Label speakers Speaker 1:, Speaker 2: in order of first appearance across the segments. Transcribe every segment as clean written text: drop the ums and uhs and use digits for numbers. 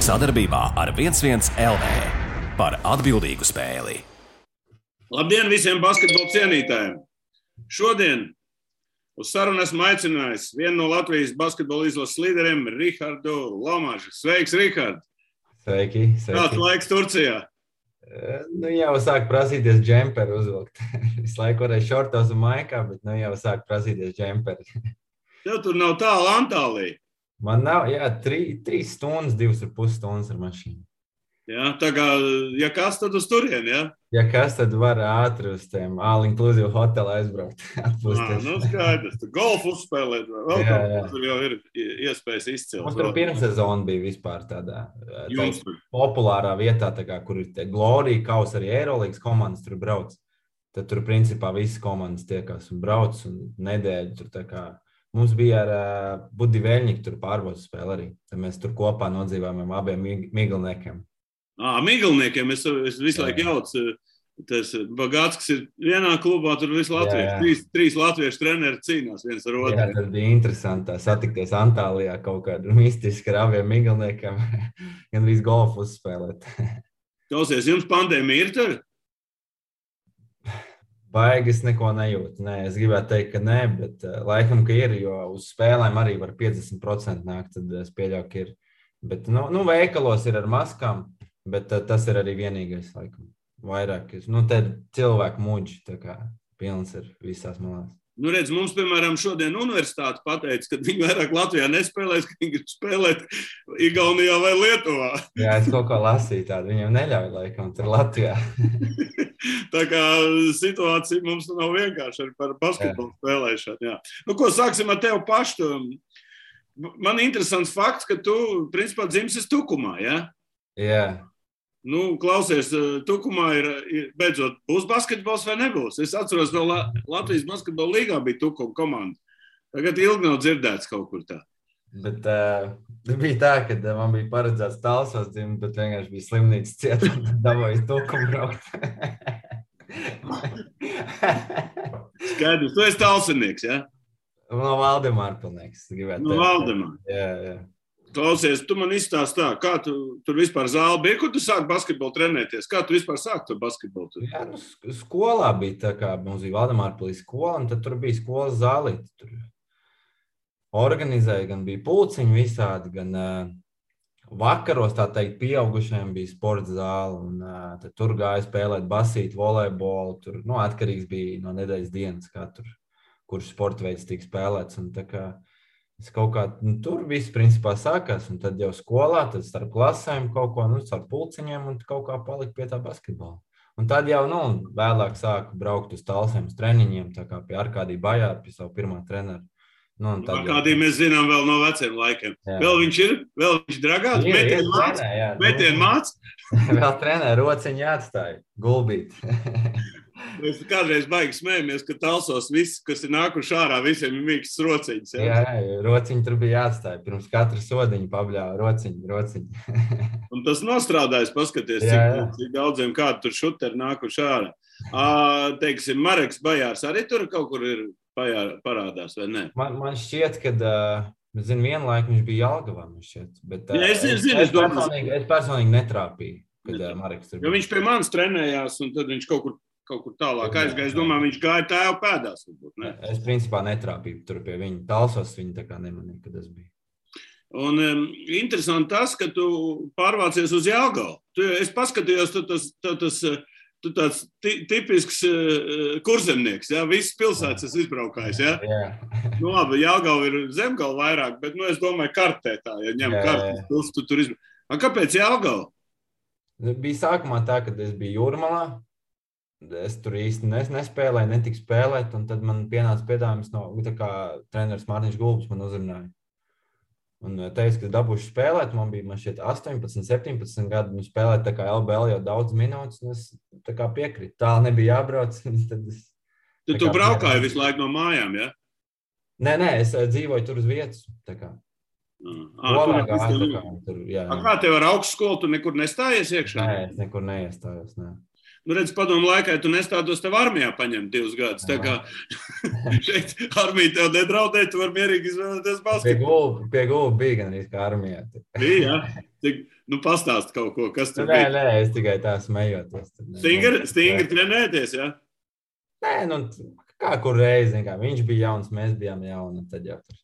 Speaker 1: Sadarbībā ar 11 LV par atbildīgu spēli.
Speaker 2: Labdien visiem basketbola cienītājiem! Šodien uz sarunu esmu aicinājis vienu no Latvijas basketbola izlases līderiem, Rihardu Lomažu. Sveiks, Rihard!
Speaker 3: Sveiki!
Speaker 2: Kāds laiks Turcijā?
Speaker 3: Jau sāk prasīties džemperi uzvilkt. Visu laiku varēja šortos un maikā, bet jau sāk prasīties džemperi.
Speaker 2: Tev tur nav tālu Antālija?
Speaker 3: Man nav, 3 stundas, 2,5 stundas ar mašīnu.
Speaker 2: Jā, tā kā, ja kas, tad uz turieni, jā?
Speaker 3: Ja kas, tad var ātri uz tiem all-inclusive hotelu aizbraukt.
Speaker 2: Skaidrs. Tu golfu uzspēlēt, vēl kaut tur jau ir iespējas izcelt.
Speaker 3: Mums tur pirmsezona bija vispār tādā populārā vietā, kur ir tie Glorija kaus, arī Eirolīgas komandas tur brauc. Tad tur principā visas komandas tiekās un brauc un nedēļu tur tā kā. Mums bija ar Budi Veļņiku tur pārbaudas spēle arī. Tad mēs tur kopā nodzīvājām abiem Miglniekiem.
Speaker 2: Miglniekiem, es visu laiku jaucu. Tas Bagātskis ir vienā klubā, tur visi latvieši. Trīs latviešu treneri cīnās viens ar otru.
Speaker 3: Jā, tas bija interesanti satikties Antālijā kaut kādu mistiski ar abiem Miglniekiem. Gan arī golfu uzspēlēt.
Speaker 2: Klausies, jums pandēmija ir tur?
Speaker 3: Baigi es neko nejūtu. Nē, es gribētu teikt, ka nē, bet laikam, ka ir, jo uz spēlēm arī var 50% nākt, tad es pieļauju, ka ir. Bet, veikalos ir ar maskām, bet tas ir arī vienīgais, laikam, vairāk. Te cilvēku muģi, tā kā pilns ir visās malās.
Speaker 2: Redz, mums, piemēram, šodien universitāte pateica, ka viņi vairāk Latvijā nespēlēs, ka viņi grib spēlēt Igaunijā vai Lietuvā.
Speaker 3: Jā, es kaut ko lasīju tādu, viņiem neļauj laikam tur Latvijā.
Speaker 2: Tā kā situācija mums nav vienkārši arī par basketbolu spēlēšanu. Jā. Ko sāksim ar tevi pašu? Man interesants fakts, ka tu, principā, dzimsi Tukumā, jā?
Speaker 3: Jā.
Speaker 2: Klausies, Tukumā ir beidzot, būs basketbols vai nebūs? Es atceros, vēl Latvijas basketbola līgā bija Tukuma komanda. Tagad ilgi nav dzirdēts kaut kur tā.
Speaker 3: Bet bija tā, ka man bija paredzēts Talsos dzimt, bet vienkārši bija slimnīcas cieta un dabūju Tukumu braukt.
Speaker 2: Skaidrs, tu esi talsinieks, jā?
Speaker 3: No Valdemāra pilnīgs.
Speaker 2: No Valdemāra?
Speaker 3: Jā.
Speaker 2: Klausies, tu man izstāsti tā, kā tu tur vispār zāli bija, kur tu sāki basketbolu trenēties? Kā tu vispār sāki to basketbolu? Tur?
Speaker 3: Jā, skolā bija tā kā mums bija Valdemāra pilī skola, un tad tur bija skolas zālīte. Tur organizēja, gan bija pulciņi visādi, gan vakaros, tā teikt, pieaugušajiem bija sporta zāle, un tad tur gāja spēlēt basīti, volejbolu, tur, atkarīgs bija no nedēļas dienas, kā tur, kurš sporta veids tika spēlēts, un tā kā es kaut kā, tur viss principā sākās, un tad jau skolā, tad starp klasēm kaut ko, starp pulciņiem, un kaut kā palika pie tā basketbola. Un tad jau, vēlāk sāku braukt uz Talsiem, uz treniņiem, tā kā pie Arkādija Bajāra, pie savu pirmā trenera.
Speaker 2: Arkādiju mēs zinām vēl no veciem laikiem. Jā. Vēl viņš dragāt, metienu māc.
Speaker 3: Vēl trenē, rociņi jāatstāja, gulbīt.
Speaker 2: Mēs kādreiz baigi smējamies, ka Talsos viss, kas ir nākuši ārā, visiem ir mīkstas rociņas.
Speaker 3: Jā, rociņi tur bija jāatstāja. Pirms katra sodiņa pabļāva rociņi.
Speaker 2: Un tas nostrādājas, paskaties, cik daudziem kādu tur šuteri nākuši ārā. Teiksim, Mareks Bajārs arī tur kaut kur ir parādās, vai ne?
Speaker 3: Man šķiet, ka, vienu laiku viņš bija Jelgavā, bet es personīgi netrāpīju, kad Mareks tur bija.
Speaker 2: Jo viņš pie manis trenējās, un tad viņš kaut kur tālāk aizgāja. Es domāju, viņš gāja tēva pēdās, varbūt, ne?
Speaker 3: Es principā netrāpīju tur pie viņa. Talsos viņa tā kā nemanīja, kad es biju.
Speaker 2: Un interesanti tas, ka tu pārvācies uz Jelgavu. Es paskatījos, tu tāds tipisks kurzemnieks, jā? Visas pilsētas es izbraukājis, jā?
Speaker 3: Jā.
Speaker 2: Labi, Jelgava ir Zemgala vairāk, bet, es domāju, kartē tā, ja ņem kartes, tu tur izbraukājis. Kāpēc Jelgava?
Speaker 3: Bija sākumā tā, kad es biju Jūrmalā. Es tur īsti nespēlēju, netiku spēlēt, un tad man pienāca piedāvājums no treneris Mārtiņš Gulbis man uzrunāja. Un teica, ka dabūšu spēlēt, man šķiet 18, 17 gadu, un spēlēt tā kā LBL jau daudz minūtes, un es tā kā piekrītu. Tāli nebija jābrauc.
Speaker 2: Tu braukāji visu laiku no mājām, ja?
Speaker 3: Nē, es dzīvoju tur uz vietas, tā kā.
Speaker 2: Kā tev ar augstskolu, tu nekur nestājies iekšā?
Speaker 3: Nē, es nekur neiestājos, nē.
Speaker 2: redz, padomu laikā tu nestātos tev armijā paņemt 2 gadus. Tā kā šeit armija tev nedraudē, tu vari mierīgi izvēlēties basketbolu.
Speaker 3: Pie gulba bija gan arī kā armijā.
Speaker 2: Bija, jā. Pastāst kaut ko, kas tur bija.
Speaker 3: Nē, es tikai tā smejoties.
Speaker 2: Stingri trenēties, jā?
Speaker 3: Nē, kā kur reizi, viņš bija jauns, mēs bijām jauni, tad jau tur.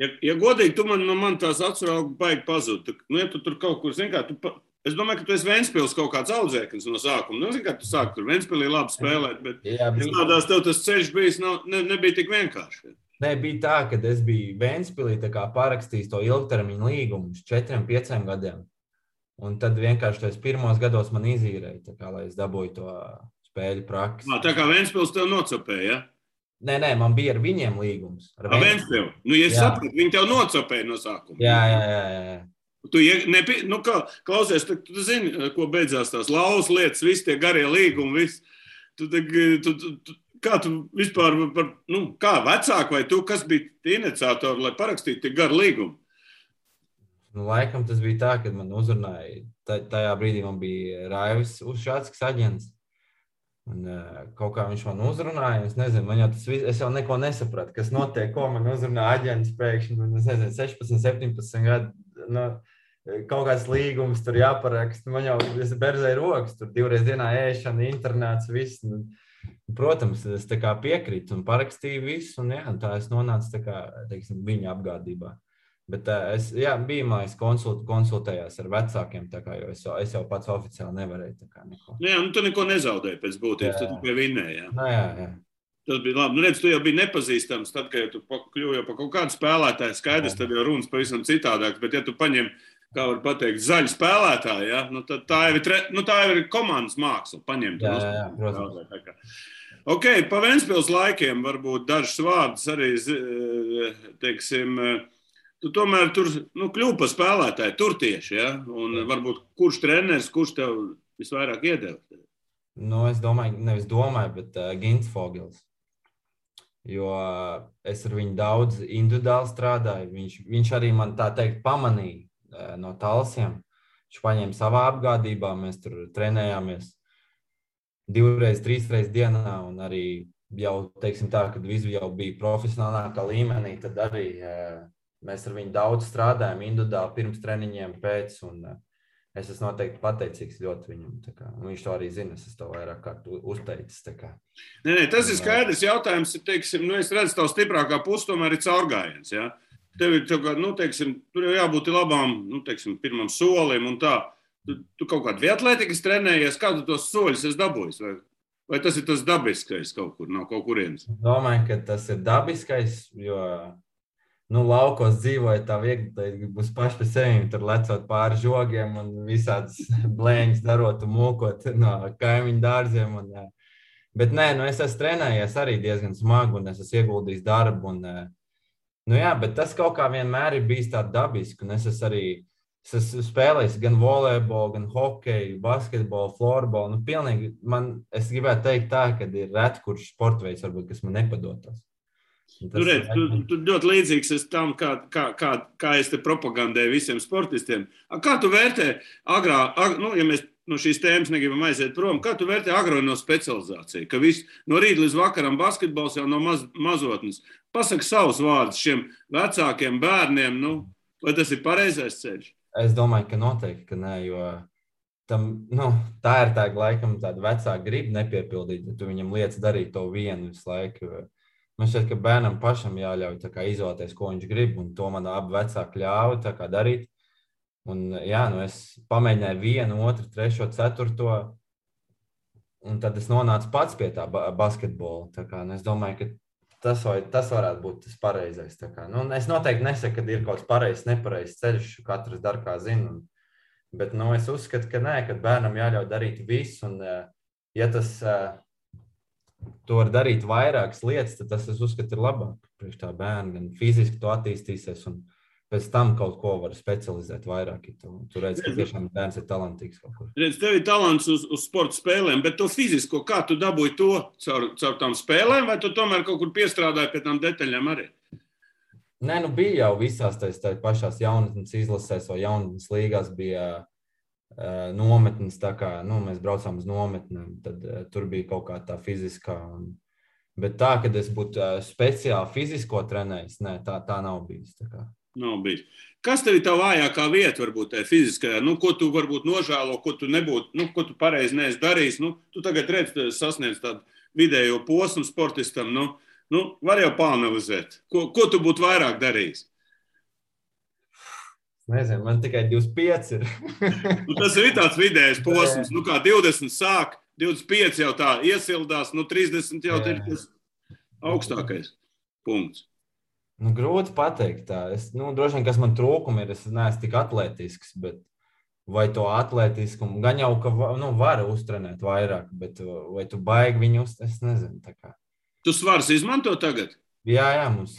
Speaker 2: Ja godīgi, tu man tās atsrauga baigi pazūd. Ja tu tur kaut kur, es domāju, ka tu esi Ventspils kaut kāds audzēknis no sākuma. Kā tu sāki tur Ventspilī labi spēlēt, bet tādās tev tas ceļš bijis nebija tik vienkārši.
Speaker 3: Nē, bija tā, ka es biju Ventspilī parakstījis to ilgtermiņu līgumu uz 4-5 gadiem. Un tad vienkārši tos pirmos gados man izīrēja, lai es dabūju to spēļu praksi.
Speaker 2: Tā kā Ventspils tev nocopēja, ja?
Speaker 3: Nē, man bija ar viņiem līgums.
Speaker 2: Ar Ventspilu? Ja es sapratu, viņi tev nocopēja no sākuma.
Speaker 3: Jā.
Speaker 2: Tu klausies, tu zini, ko beidzās tās lauvas lietas, visi tie garie līgumi, kā tu vispār, kā vecāki vai tu, kas bija tie iniciatori, lai parakstītu tie garu līgumu?
Speaker 3: Laikam tas bija tā, kad man uzrunāja, tajā brīdī man bija Raivis Ušāckis aģents. Un kaut kā viņš man uzrunāja, es nezinu, es jau neko nesapratu, kas notiek, ko man uzrunā aģents pēkšņi, es nezinu, 16, 17 gadu, kaut kāds līgums tur jāparaksta, man jau berzēja rokas, tur 2 reizes dienā ēšana, internāts, viss. Protams, es tā kā piekrītu un parakstīju visu, un tā es nonācu tā kā, teiksim, viņa apgādībā. Bet bija mājas konsultējās ar vecākiem, jo es jau pats oficiāli nevarēju tā kā neko.
Speaker 2: Tu neko nezaudēji pēc būtības, tad tu pie vinnēji, jā?
Speaker 3: Jā.
Speaker 2: Tas bija labi. Redz, tu jau biji nepazīstams, tad, kad tu kļuvi jau pa kaut kādu spēlētāju, skaidrs, tad jau runas pavisam citādāks, bet ja tu paņem, kā var pateikt, zaļu spēlētāju, ja? Tad tā jau ir komandas māksla, paņemt.
Speaker 3: Jā, protams.
Speaker 2: Ok, pa Ventspils laikiem varbūt dažs vārdus arī, teiksim, tu tomēr tur kļuvi par spēlētāju, tur tieši, ja? Un varbūt kurš treneris, kurš tev visvairāk iedeva?
Speaker 3: Es nevis domāju, bet Gints Fogels. Jo es ar viņu daudz individuāli strādāju. Viņš arī man tā teikt pamanīja no Talsiem. Viņš paņēma savā apgādībā, mēs tur trenējāmies 2-3 reizes dienā un arī jau, teiksim tā, kad visi jau bija profesionālākā līmenī, tad arī mēs ar viņu daudz strādājam individuāli pirms treniņiem, pēc, un es esmu noteikti pateicīgs ļoti viņam. Viņš to arī zina, es to vairāk kārt uzteicis.
Speaker 2: Nē, tas ir skaidrs jautājums, teiksim, es redzu, tavu stiprākā puse tomēr ir caurgājiens, ja? Tev ir, teiksim, tur jau jābūt labām, teiksim, pirmam solim un tā. Tu kaut kādu viatlētikas trenējies, kādu tos soļus esi dabūjis? Vai tas ir tas dabiskais kaut kur, nav kaut kurienes?
Speaker 3: Domāju, ka tas ir dabiskais, jo laukos dzīvoja tā viegli, būs paši pie sevim, tur lecot pāri žogiem un visādas blēņas darot un mūkot no kaimiņu dārziem. Bet nē, es esmu trenējies arī diezgan smagi un es esmu ieguldījis darbu. Bet tas kaut kā vienmēr ir bijis tā dabiski. Un es esmu spēlējis gan volejbolu, gan hokeju, basketbolu, florbolu. Pilnīgi es gribētu teikt tā, ka ir reti, kurš sportveids varbūt, kas man nepadotos.
Speaker 2: Tu ļoti līdzīgs esi tam, kā es te propagandēju visiem sportistiem. Kā tu vērtē ja mēs no šīs tēmas negribam aiziet prom, kā tu vērtē agrono specializāciju? Ka viss no rīta līdz vakaram basketbols jau no mazotnes. Pasaka savus vārdus šiem vecākiem bērniem, vai tas ir pareizais ceļš?
Speaker 3: Es domāju, ka noteikti, ka nē, jo tā ir laikam tāda vecāka griba nepiepildīt, ja tu viņam liec darīt to vienu visu laiku. Man šķiet, ka bērnam pašam jāļauj izvēlēties, ko viņš grib, un to man abi vecāki ļāva darīt. Un, es pamēģināju 1, 2, 3, 4, un tad es nonācu pats pie tā basketbola. Es domāju, ka tas varētu būt tas pareizais. Es noteikti nesaku, ka ir kaut kāds pareizs, nepareizs ceļš, katrs dara kā zina. Bet es uzskatu, ka nē, ka bērnam jāļauj darīt visu, un ja tas tu vari darīt vairākas lietas, tad tas, es uzskatu, ir labāk priekš tā bērna. Gan fiziski tu attīstīsies un pēc tam kaut ko var specializēt vairāk. Tu redzi, ka tiešām bērns ir talantīgs kaut kur.
Speaker 2: Redz, tev ir talants uz sporta spēlēm, bet to fizisko, kā tu dabūji to caur tām spēlēm, vai tu tomēr kaut kur piestrādāji pie tām detaļām arī?
Speaker 3: Nē, bija jau visās tā pašās jaunatnes izlasēs vai jaunatnes līgās bija nometnes, tā kā mēs braucām uz nometnēm, tad tur bija kaut kā tā fiziskā. Bet tā, kad es būtu speciāli fizisko trenējis, nē, tā nav bijis.
Speaker 2: Nav bijis. Kas tev ir tā vājākā vieta, varbūt tā fiziskajā? Ko tu varbūt nožēlo, ko tu nebūtu, ko tu pareizi neesi darījis? Tu tagad redz, sasniedz tādu vidējo posmu sportistam. Var jau pāanalizēt. Ko tu būtu vairāk darījis?
Speaker 3: Nezinu, man tikai 25 ir.
Speaker 2: Tas ir tāds vidējais posms. Kā 20 sāk, 25 jau tā iesildās, 30 jau ir tas augstākais punkts.
Speaker 3: Grūti pateikt tā. Droši vien, kas man trūkumi ir, es neesmu tik atletisks, bet vai to atletiskumu, gan jau, ka var uztrenēt vairāk, bet vai tu baigi viņu es nezinu. Tā kā.
Speaker 2: Tu svars izmanto tagad?
Speaker 3: Jā, mums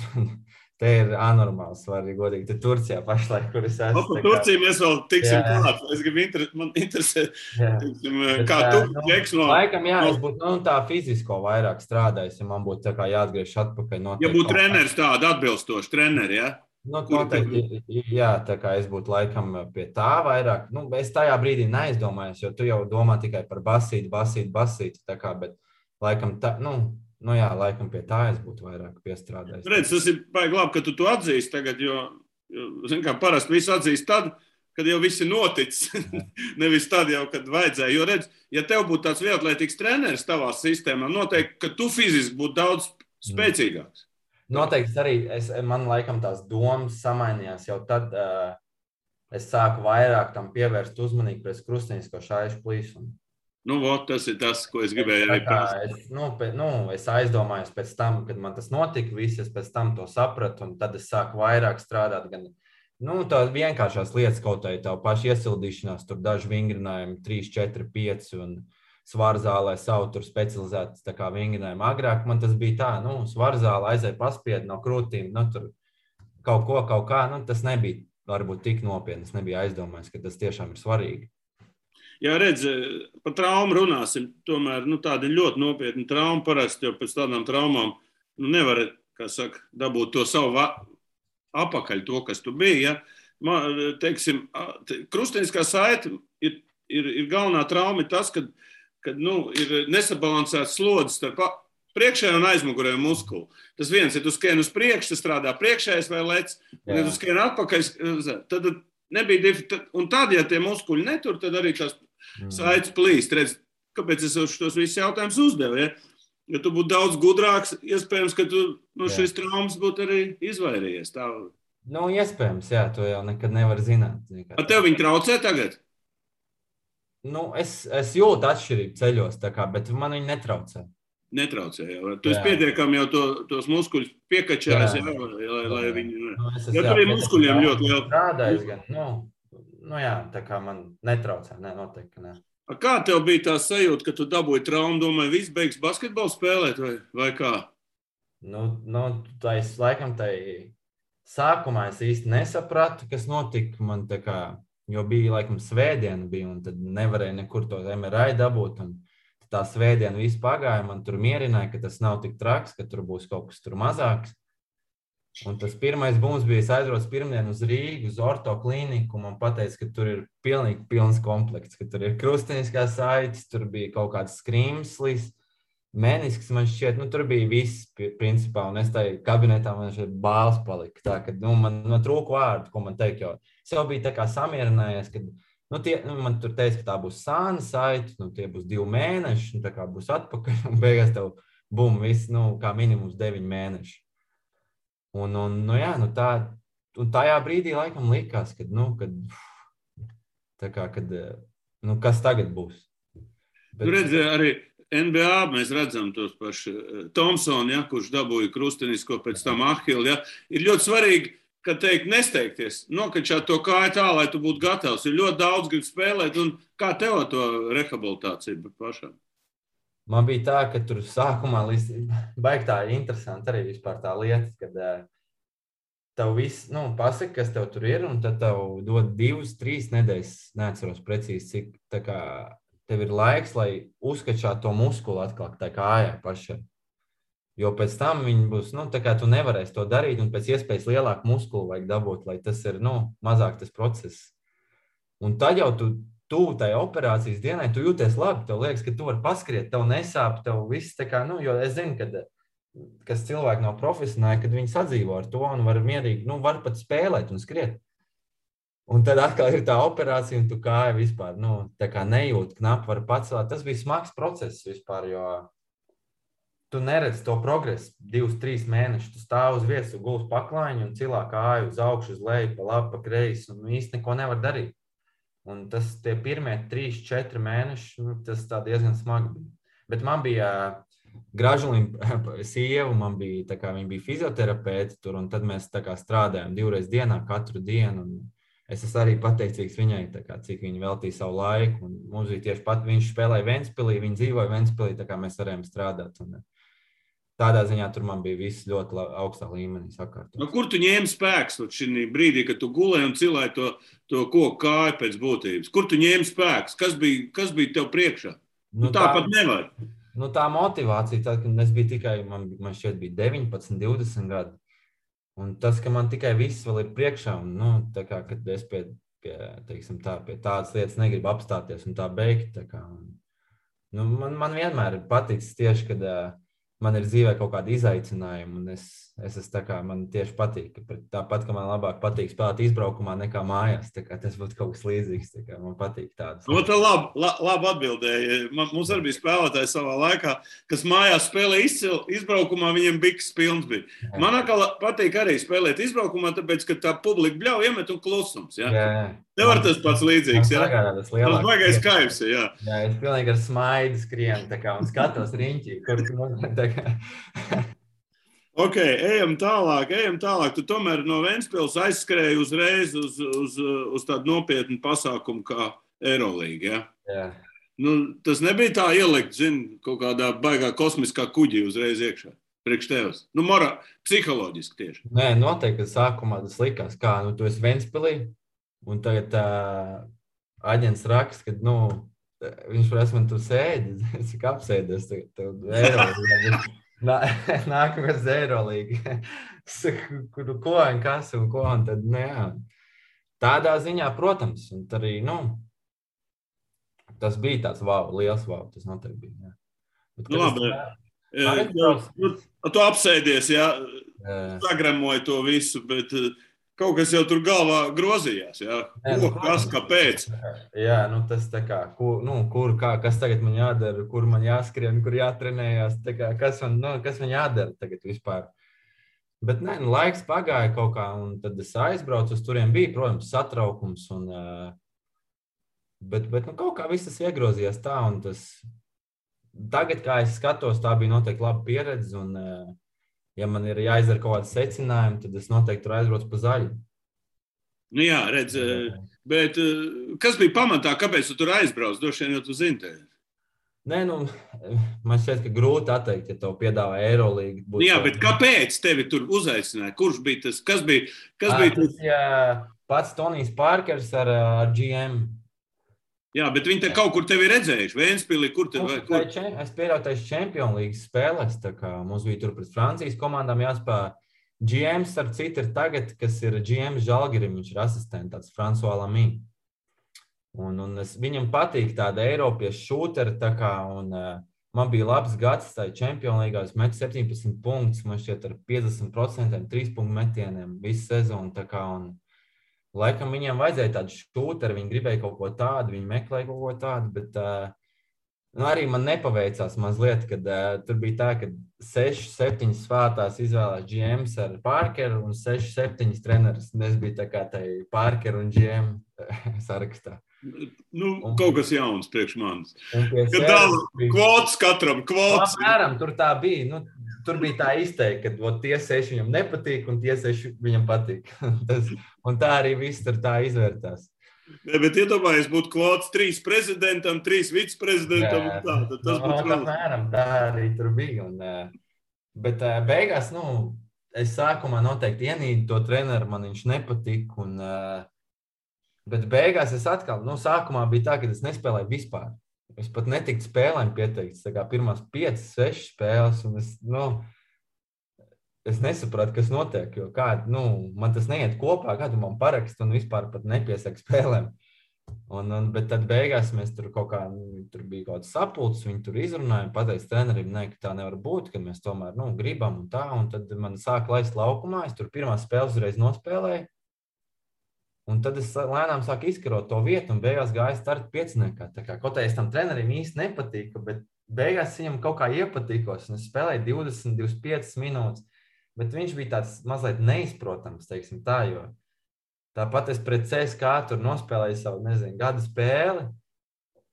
Speaker 3: te ir anormāli svarīgi, godīgi. Te Turcijā pašlaik, kur es esmu.
Speaker 2: Par Turciju mēs vēl tiksim klāt. Es gribu man interesē, kā tu ķeks no...
Speaker 3: Laikam, es būtu tā fizisko vairāk strādājis, ja man būtu tā kā jāatgriež atpakaļ.
Speaker 2: Ja būtu treneris tāda atbilstoši treneri, ja?
Speaker 3: Noteikti, jā, tā kā es būtu laikam pie tā vairāk. Es tajā brīdī neaizdomājos, jo tu jau domā tikai par basīti, tā kā, bet laikam tā, laikam pie tā es būtu vairāk piestrādājis.
Speaker 2: Redz, tas ir baigi labi, ka tu to atzīsti tagad, jo zin kā, parasti visu atzīst tad, kad jau viss ir noticis. Nevis tad jau, kad vajadzēja. Jo redz, ja tev būtu tāds vieglatlētīgs treneris tavā sistēmā, noteikti, ka tu fiziski būtu daudz spēcīgāks.
Speaker 3: Noteikti arī man laikam tās domas samainījās jau tad, es sāku vairāk tam pievērst uzmanību pēc krustinisko šaišu plīsumu.
Speaker 2: Tas ir tas, ko es gribēju arī prasīt.
Speaker 3: Es aizdomājos pēc tam, kad man tas notika, es pēc tam to sapratu, un tad es sāku vairāk strādāt gan, tā vienkāršās lietas, kaut arī tā paša iesildīšanās, tur daži vingrinājumi, 3, 4, 5, un svarzālē savu tur specializētas tā kā vingrinājumi. Agrāk man tas bija tā, svarzālē aizēja paspied no krūtīm, tur kaut kā, tas nebija varbūt tik nopietni, es nebija aizdomājis, ka tas tiešām ir svarīgi.
Speaker 2: Jā, redz, par traumu runāsim, tomēr, tāda ļoti nopietna trauma parasti, jo pēc tādām traumām, nevar, kā saka, dabūt to savu apakaļ, to, kas tu biji, ja. Teiksim, krustiniskā saite ir galvenā trauma tas, kad ir nesabalansēts slodzes starp priekšējā un aizmugurējo muskulu. Tas viens, ja tu skrien uz priekšu, tas strādā priekšējais vai lec, un ja tu skrien atpakaļ, tad nebija un tad, ja tie muskuļi netur, tad arī tās saites plīst. Redz, kāpēc es tos visus jautājumus uzdevu, ja? Ja tu būtu daudz gudrāks, iespējams, ka tu šis traumas būtu arī izvairījies. Tā.
Speaker 3: Iespējams, jā, to jau nekad nevar zināt.
Speaker 2: A tev viņi traucē tagad?
Speaker 3: Es jūtu atšķirību ceļos, tā kā, bet man viņi netraucē.
Speaker 2: Netraucē, jā. Tu esi pietiekami jau tos muskuļus piekačājis, lai viņi... Ja tur ir muskuļiem ļoti liela...
Speaker 3: Strādājis gan, tā kā man netraucē, noteikti, ka ne.
Speaker 2: Kā tev bija tā sajūta, ka tu dabūji traumu, domāji, viss beigs basketbolu spēlēt vai kā?
Speaker 3: Laikam sākumā es īsti nesapratu, kas notika man tā kā, jo bija laikam svētdiena bija, un tad nevarēja nekur to MRI dabūt, un tā svētdiena viss pagāja, man tur mierināja, ka tas nav tik traks, ka tur būs kaut kas tur mazāks. Un tas pirmais bums bija, es aizbraucu pirmdien uz Rīgu, uz orto klīniku, un man pateica, ka tur ir pilnīgi pilns komplekts, ka tur ir krustiniskās saites, tur bija kaut kāds skrimslis, menisks man šķiet, tur bija viss principā, un es tai kabinetā man šeit bāls palika, tā, ka, man trūka vārdu, ko man teikt, jo es jau biju tā kā samierinājies, kad man tur teica, ka tā būs sāna saite, tie būs 2 mēneši, un tā kā būs atpakaļ, un beigās tev bum, viss, kā minimums 9 mēneši. Un tajā brīdī laikam likās, kas tagad būs.
Speaker 2: Redz, arī NBA mēs redzam tos paši Thompsonu, ja, kurš dabūja krustinisko pēc tam Ahilu, ja, ir ļoti svarīgi, ka teikt nesteigties, nokačāt to kāju tā, lai tu būtu gatavs. Ir ļoti daudz grib spēlēt, un kā tev to rehabilitāciju pašam?
Speaker 3: Man bija tā, ka tur sākumā baigi tā interesanti arī vispār tā lieta, kad tev viss, pasaka, kas tev tur ir, un tad tev dod 2-3 nedēļas, neatceros precīzi, cik tā kā tev ir laiks, lai uzskačāt to muskulu atkal tā kājā pašai. Jo pēc tam viņi būs, tā kā tu nevarēsi to darīt, un pēc iespējas lielāku muskulu vajag dabūt, lai tas ir, mazāk tas process. Un tad jau tu tuvu tai operācijas dienai, tu jūties labi, tev liekas, ka tu vari paskriet, tev nesāp, tev viss tā kā, jo es zinu, kas cilvēki nav profesionāli, kad viņi sadzīvo ar to un var mierīgi, var pat spēlēt un skriet. Un tad atkal ir tā operācija, un tu kāja vispār, tā kā nejūt, knapi var pacelt. Tas bija smags process vispār, jo tu neredzi to progresu 2-3 mēnešus. Tu stāv uz vietas, tu gulst paklājiņu un cilā kāju uz augšu, uz leju, pa labi, pa kreisi, un īsti neko nevar darīt. Un tie pirmie 3-4 mēneši, tas tā diezgan smagi bija. Bet man bija Gražulīna sieva, viņa bija fizioterapeite tur, un tad mēs tā kā strādājām 2 reizes dienā, katru dienu. Un es esmu arī pateicīgs viņai, tā kā, cik viņa veltīja savu laiku. Un mums bija tieši viņš spēlēja Ventspilī, viņa dzīvoja Ventspilī, tā kā mēs varējām strādāt. Un tādā ziņā tur man bija viss ļoti augstā līmenī sakārtot.
Speaker 2: Kur tu ņēmi spēks šī brīdī, kad tu gulēji un cilēji to koku kāju pēc būtības? Kur tu ņēmi spēks? Kas bija tev priekšā? Tāpat nevar.
Speaker 3: Tā motivācija, tad, kad es biju tikai, man šķiet bija 19, 20 gadi. Un tas, ka man tikai viss vēl ir priekšā, un tā kā, kad es pie tādas lietas negribu apstāties un tā beigt, tā kā, man vienmēr ir paticis tieši, kad man ir dzīvē kaut kādi izaicinājumi, un es esmu tā kā, man tieši patīk, tāpat, ka man labāk patīk spēlēt izbraukumā nekā mājās, tā kā tas būtu kaut kas līdzīgs, tā kā man patīk tādas.
Speaker 2: Tā labi atbildēja. Mums arī bija spēlētāji savā laikā, kas mājās spēlē izbraukumā, viņiem biks pilns bija. Man atkal patīk arī spēlēt izbraukumā, tāpēc, ka tā publika bļauj iemet un klusums, ja? Nevar tas pats līdzīgs, ja? Tas baigais kaivs, ja?
Speaker 3: Jā, es pilnīgi ar smaidu skrienu, tā kā, un skatos riņķī, kur tā kā.
Speaker 2: Ok, ejam tālāk. Tu tomēr no Ventspils aizskrēji uzreiz uz tādu nopietnu pasākumu kā Eirolīga, ja?
Speaker 3: Jā.
Speaker 2: Tas nebija tā ielikt, kaut kādā baigā kosmiskā kuģī uzreiz iekšā, priekš tevis. Psiholoģiski tieši.
Speaker 3: Nē, noteikti, ka sākumā tas likās, kā, tu esi Ventspilī, un tagad aģents raksta, ka, viņš prasa man, tu sēdi, es cik apsēdies, tev Eirolīga. Nākamais Eirolīga. Ko un kas un ko, un tad, tādā ziņā, protams, un arī, tas bija tāds liels tas noteikti bija, jā.
Speaker 2: Labi, tu apsēdies, jā, sagremoji to visu, bet kaut kas jau tur galvā grozījās, jā, kas, kāpēc?
Speaker 3: Jā, tas tā kā, kas tagad man jādara, kur man jāskrien, kur jātrenējās, tā kā, kas man jādara tagad vispār. Bet laiks pagāja kaut kā, un tad es aizbraucu, uz turiem bija, protams, satraukums, bet kaut kā viss tas iegrozījās tā, un tagad, kā es skatos, tā bija noteikti laba pieredze, un ja man ir jāizdara kaut kādi secinājumi, tad es noteikti tur aizbraucu pa zaļu.
Speaker 2: Jā, redz, bet kas bija pamatā, kāpēc tu tur aizbrauc? Droši vien, jo tu zini tevi.
Speaker 3: Nē, man šķiet, ka grūti atteikt, ja tev piedāvā Eirolīgu.
Speaker 2: Jā, bet kāpēc tevi tur uzaicināja? Kurš bija tas? Kas bija tas?
Speaker 3: Jā, pats Tonijs Pārkers ar GM.
Speaker 2: Jā, bet viņi te kaut kur tevi redzējuši. Ventspilī, kur?
Speaker 3: Es pieļauju taisa Champions League spēlēs, tā kā mums bija tur pret Francijas komandām jāspēlē. GM, starp citu, ir tagad, kas ir GM Žalgirim, viņš ir asistents, tāds François Lamy. Un viņam patīk tāda Eiropiešu šūteri, tā kā, un man bija labs gads tajā Champions League, es metu 17 punktus, man šķiet ar 50%, 3 punktu metieniem visu sezonu, tā kā, un laikam viņiem vajadzēja tādu šūteri, viņi gribēja kaut ko tādu, viņi meklēja kaut ko tādu, bet arī man nepaveicās mazliet, kad tur bija tā, ka 6-7 svētās izvēlās GMs ar Parkeru un 6-7 treneris. Es biju tā kā tai Parkeru un GM sarakstā.
Speaker 2: Kaut kas jauns priekš manis. Kad dala kvotas katram, kvotas.
Speaker 3: Apmēram, tur tā bija. Tur bija tā izteikti, ka tie 6 viņam nepatīk un tie 6 viņam patīk. Un tā arī viss tur tā izvērtās.
Speaker 2: Bet iedomājies, būtu kvotas 3 prezidentam, 3 viceprezidentam un tā. Tad tas būtu vēl.
Speaker 3: Apmēram, tā arī tur bija. Bet beigās, es sākumā noteikti ienīdu to treneru, man viņš nepatīk. Bet beigās es atkal, sākumā bija tā, ka es nespēlēju vispār. Es pat netiku spēlēm pieteikts, tā kā pirmās 5-6 spēles, un es nesapratu, kas notiek, jo man tas neiet kopā, kādu man parakst un vispār pat nepiesaka spēlēm. Bet tad beigās mēs tur tur bija kaut kāds sapulcs, viņi tur izrunāja, pateica trenerim, ka tā nevar būt, ka mēs tomēr gribam un tā, un tad man sāka laist laukumā, es tur pirmā spēles uzreiz nospēlēju, un tad es lēnām sāku izkarot to vietu, un beigās gāju starta pieciniekā, tā kā kaut kā es tam trenerim īsti nepatīku, bet beigās viņam kaut kā iepatīkos, un es spēlēju 20-25 minūtes, bet viņš bija tāds mazliet neizprotams, teiksim tā, jo tāpat es pret CSK tur nospēlēju savu, gada spēli,